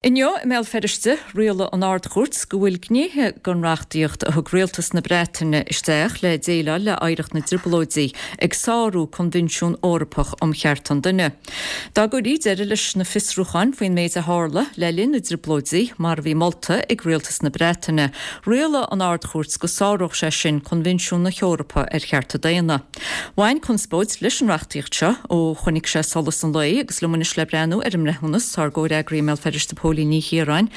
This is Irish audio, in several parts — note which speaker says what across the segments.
Speaker 1: Inniu i mBéal Feirste, rialaigh an Ard-Chúirt go bhfuil gnéithe den reachtaíocht a thug Rialtas na Breataine isteach le déileáil le hoidhreacht na dTrioblóidí ag sárú Coinbhinsiún Eorpach um Chearta an Duine. Dá gcuirí deireadh leis na fiosrúcháin faoin méid a tharla le linn na dTrioblóidí, mar a bhí molta ag Rialtas na Breataine, rialaigh an Ard-Chúirt go sáródh sé sin Coinbhinsiún na hEorpa ar Chearta Daonna. Bhain conspóid leis an reachtaíocht seo ó chonaic sé solas an lae agus liom anois le breathnú ar an mbreithiúnas tá ár gcomhfhreagraí i mBéal Feirste Póilín Ní Chiaráin.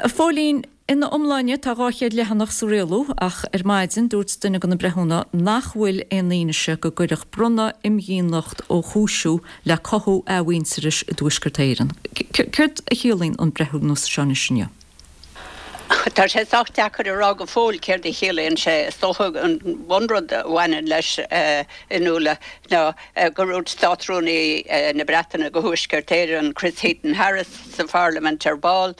Speaker 1: A Phóilín, ina iomláine tá 200 leathanach sa rialú ach ar maidin dúirt duine de na breithiúna nach bhfuil aon fhianaise go gcuirfeadh bronnadh imdhíonacht ó chúisiú le cothú athmhuintearais i dTuaisceart Éireann. Céard a chiallaíonn an breithiúnas seo anois inniu?
Speaker 2: Tá sé sách deacair a rá go fóill céard a chiallaíonn sé. Is dócha an bunrud a bhaineann leis, a Fhionnuala, ná gur dhúirt Státrúnaí na Breataine do Thuaisceart Éireann, Chris Heaton-Harris, sa Pharlaimint ar ball,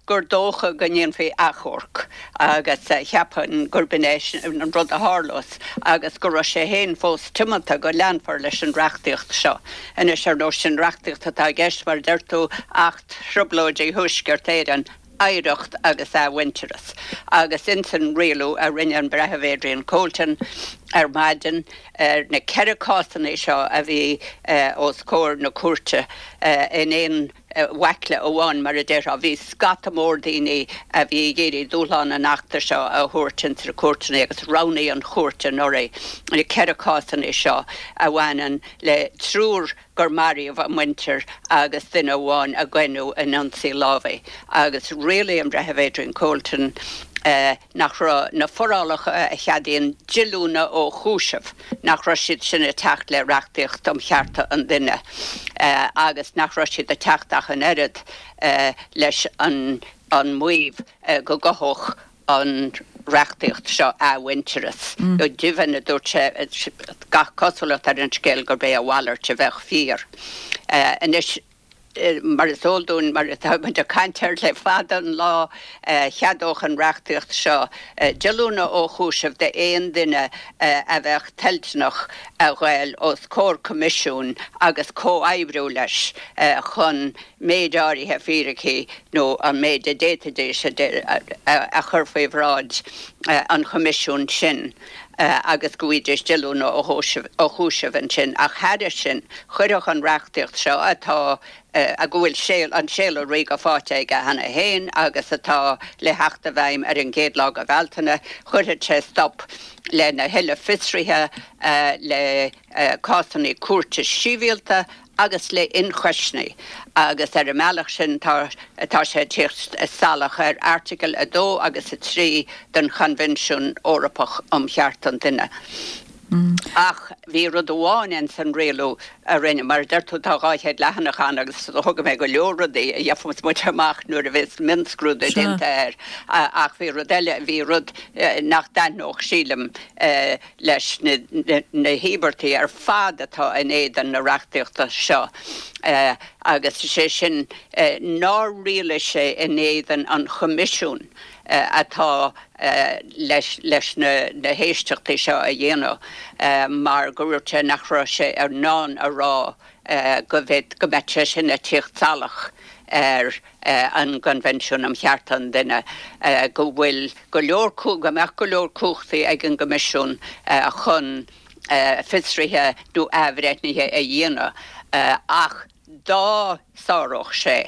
Speaker 2: gur dócha go ndéanfaí achomharc agus cheapfainn gurb in é an rud a tharlós agus go raibh sé féin fós tiomanta go leanfar leis an reachtaíocht seo. Anois, ar ndóigh, sin reachtaíocht atá i gceist, mar a deir tú, Acht Trioblóidí Thuaisceart Éireann, Oidhreacht agus Athmhuintearas, agus ins an rialú a rinne an Breitheamh Adrian Colton ar maidin ar na 4 cásanna seo a bhí os comhair na cúirte in aon bhaicle amháin, mar a déarfá, bhí scata mór daoine a bhí ag iarraidh dúshlán an Achta seo a thabhairt ins na cúirteanna agus roghnaigh an chúirt anuraidh na 4 cásanna seo a bhaineann le triúr gur maraíodh a muintir agus duine amháin a goineadh in ionsaí lámhaigh agus rialaigh an Breitheamh Adrian Colton nach raibh na forálacha a cheadaíonn díolúine ó chúiseamh, nach raibh siad sin ag teacht le reachtaíocht um chearta an duine agus nach raibh siad ag teacht ach an oiread leis an maíomh go gcothódh an reachtaíocht seo athmhuintearas. Go deimhin, a dúirt sé, gach cosúlacht ar an scéal gurb é a mhalairt a bheadh fíor. Anois, mar is eol dúinn, mar atá muid ag caint air le fada an lá, cheadódh an reachtaíocht seo díolúine ó chúiseamh d'aon duine a bheadh toilteanach a ghoil os comhair coimisiúin agus comhoibriú leis chun méid áirithe fíricí nó an méid a d'fhéadfaidís a chur faoi bhráid an Choimisiúin sin agus go bhfaighidís díolúine ó chúiseamh ansin. Ach thairis sin, chuirfeadh an reachtaíocht seo, atá, go bhfuil an Séala Ríoga faighte aige cheana féin agus atá le theacht i bhfeidhm ar an gcéad lá de Bhealtaine, chuirfeadh sé stop lena thuilleadh fiosruithe, le cásanna cúirte sibhialta agus le ionchoisní agus ar an mbealach sin tá tá sé ag tíocht salach ar Airteagail 2 agus 3 den Choinbhinsiún Eorpach um Chearta an Duine. Ach bhí rud amháin ins an rialú a rinne, mar a deir tú tá 200 leathanach ann agus thóg mé go leor rudaí a gheobhas muid amach nuair a bheas mionscrúdú déanta air ach bhí rud eile, bhí rud nach dtaitneodh sílim leis na híobartaigh ar fad atá in éadan na reachtaíochta seo agus is é sin nár rialaigh sé in éadan an Choimisiúin atá leis na héisteachtaí seo a dhéanamh mar go ndúirt sé nach raibh sé in ann a rá go mbeadh sé sin ag tíocht salach ar an gCoinbhinsiún um Chearta an Duine, go bhfuil go leor, go mbeadh go leor cumhachtaí ag an gCoimisiún chun fiosruithe nó athbhreithnithe a dhéanamh ach dá sáródh sé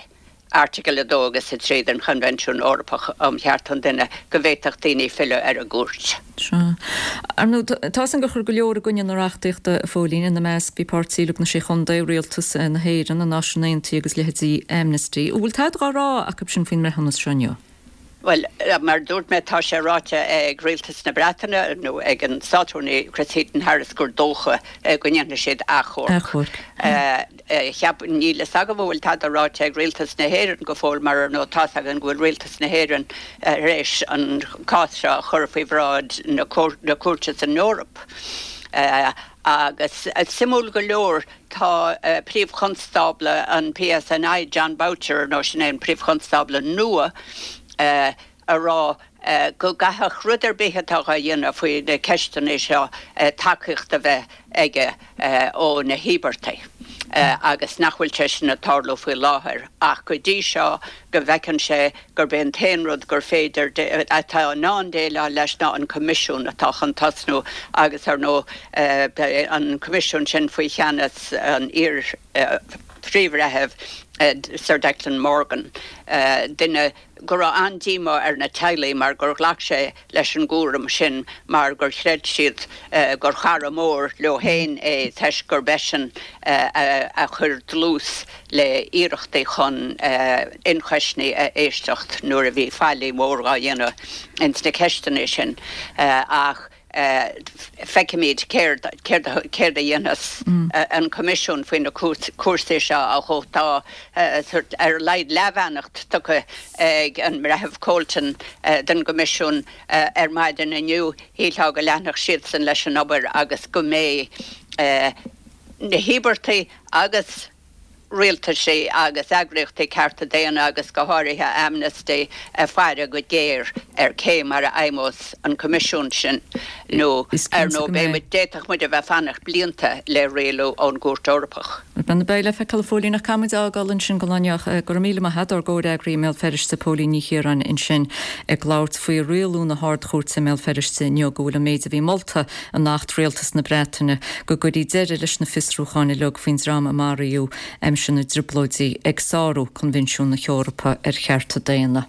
Speaker 2: Airteagail 2 agus 3 den Choinbhinsiún Eorpach um Chearta an Duine go bhféadfadh daoine filleadh ar an gcúirt.
Speaker 1: Sea. Ar ndóigh, tá 'fhios a'm gur chuir go leor i gcoinne na reachtaíochta, a Phóilín, ina measc bhí Páirtí Lucht na Sé Chontae, Rialtas na hÉireann, na Náisiúin Aontaithe agus leithéidí Amnesty. An bhfuil tada dhá rá acu sin faoin mbreithiúnas seo inniu?
Speaker 2: Bhuel, mar a dúirt mé, tá sé ráite ag Rialtas na Breataine, nó ag an Státrúnaí Chris Heaton-Harris, gur dócha go ndéanfaidh siad achomharc. Cheap, níl fhios agam an bhfuil tada ráite ag Rialtas na hÉireann go fóill mar ar ndóigh tá's againn go bhfuil Rialtas na hÉireann tar éis an cás seo a chur faoi bhráid na cúirte san Eoraip. Agus suimiúil go leor tá Príomh-Chonstábla an PSNI, Jon Boutcher, ar ndóigh sin é an Príomh-Chonstábla nua, a rá go gcaithfeadh rud ar bith atá á dhéanamh faoi na ceisteanna seo tacaíocht a bheith aige ó na híobartaigh. agus nach bhfuil sé sin ag tarlú faoi láthair ach go dtí seo go bhfeiceann sé gurb é an t-aon rud gur féidir, atá in ann déileáil leis ná an Coimisiún atá chun tosnú agus ar ndóigh beidh an Coimisiún sin faoi cheannas an iar-Phríomh-Bhreithimh Sir Declan Morgan, duine go raibh an-díomá ar na teaghlaigh mar gur ghlac sé leis an gcúram sin mar gur chreid siad gur chara mór leo féin é toisc gurb eisean a chuir dlús le hiarrachtaí chun ionchoisní a éisteacht nuair a bhí faillí mhór dhá dhéanamh ins na ceisteanna sin ach feicfimid céard a dhéanfas an Coimisiún faoi na cúrsaí seo ach tá ar a laghad leathbheannacht tugtha ag an mBreitheamh Colton don gCoimisiún ar maidin inniu. Shílfeá go leanfadh siadsan leis an obair agus go mbeidh na híobartaigh agus rialtaisí agus eagraíochtaí cearta daonna agus go háirithe Amnesty ag faire go géar ar cé mar a fheidhmeos an Coimisiún sin nó ar ndóigh beidh muid, d'fhéadfadh muid a bheith ag fanacht blianta le rialú ón gCúirt Eorpach.
Speaker 1: Bhuel, beidh le feiceáil a Phóilín ach caithfidh muid a fhágáil ansin don lá inniu. Go raibh míle maith a't, ár gcomhfhreagraí i mBéal Feirste, Póilín Ní Chiaráin ansin ag labhairt faoi rialú na hArd-Chúirte i mBéal Feirste inniu go bhfuil an méid a bhí molta in Acht Rialtas na Breataine go gcuirfí deireadh leis na fiosrúcháin uilig faoin dream a maraíodh aimsir na dTrioblóidí ag sárú Coinbhinsiún na hEorpa ar Chearta Daonna.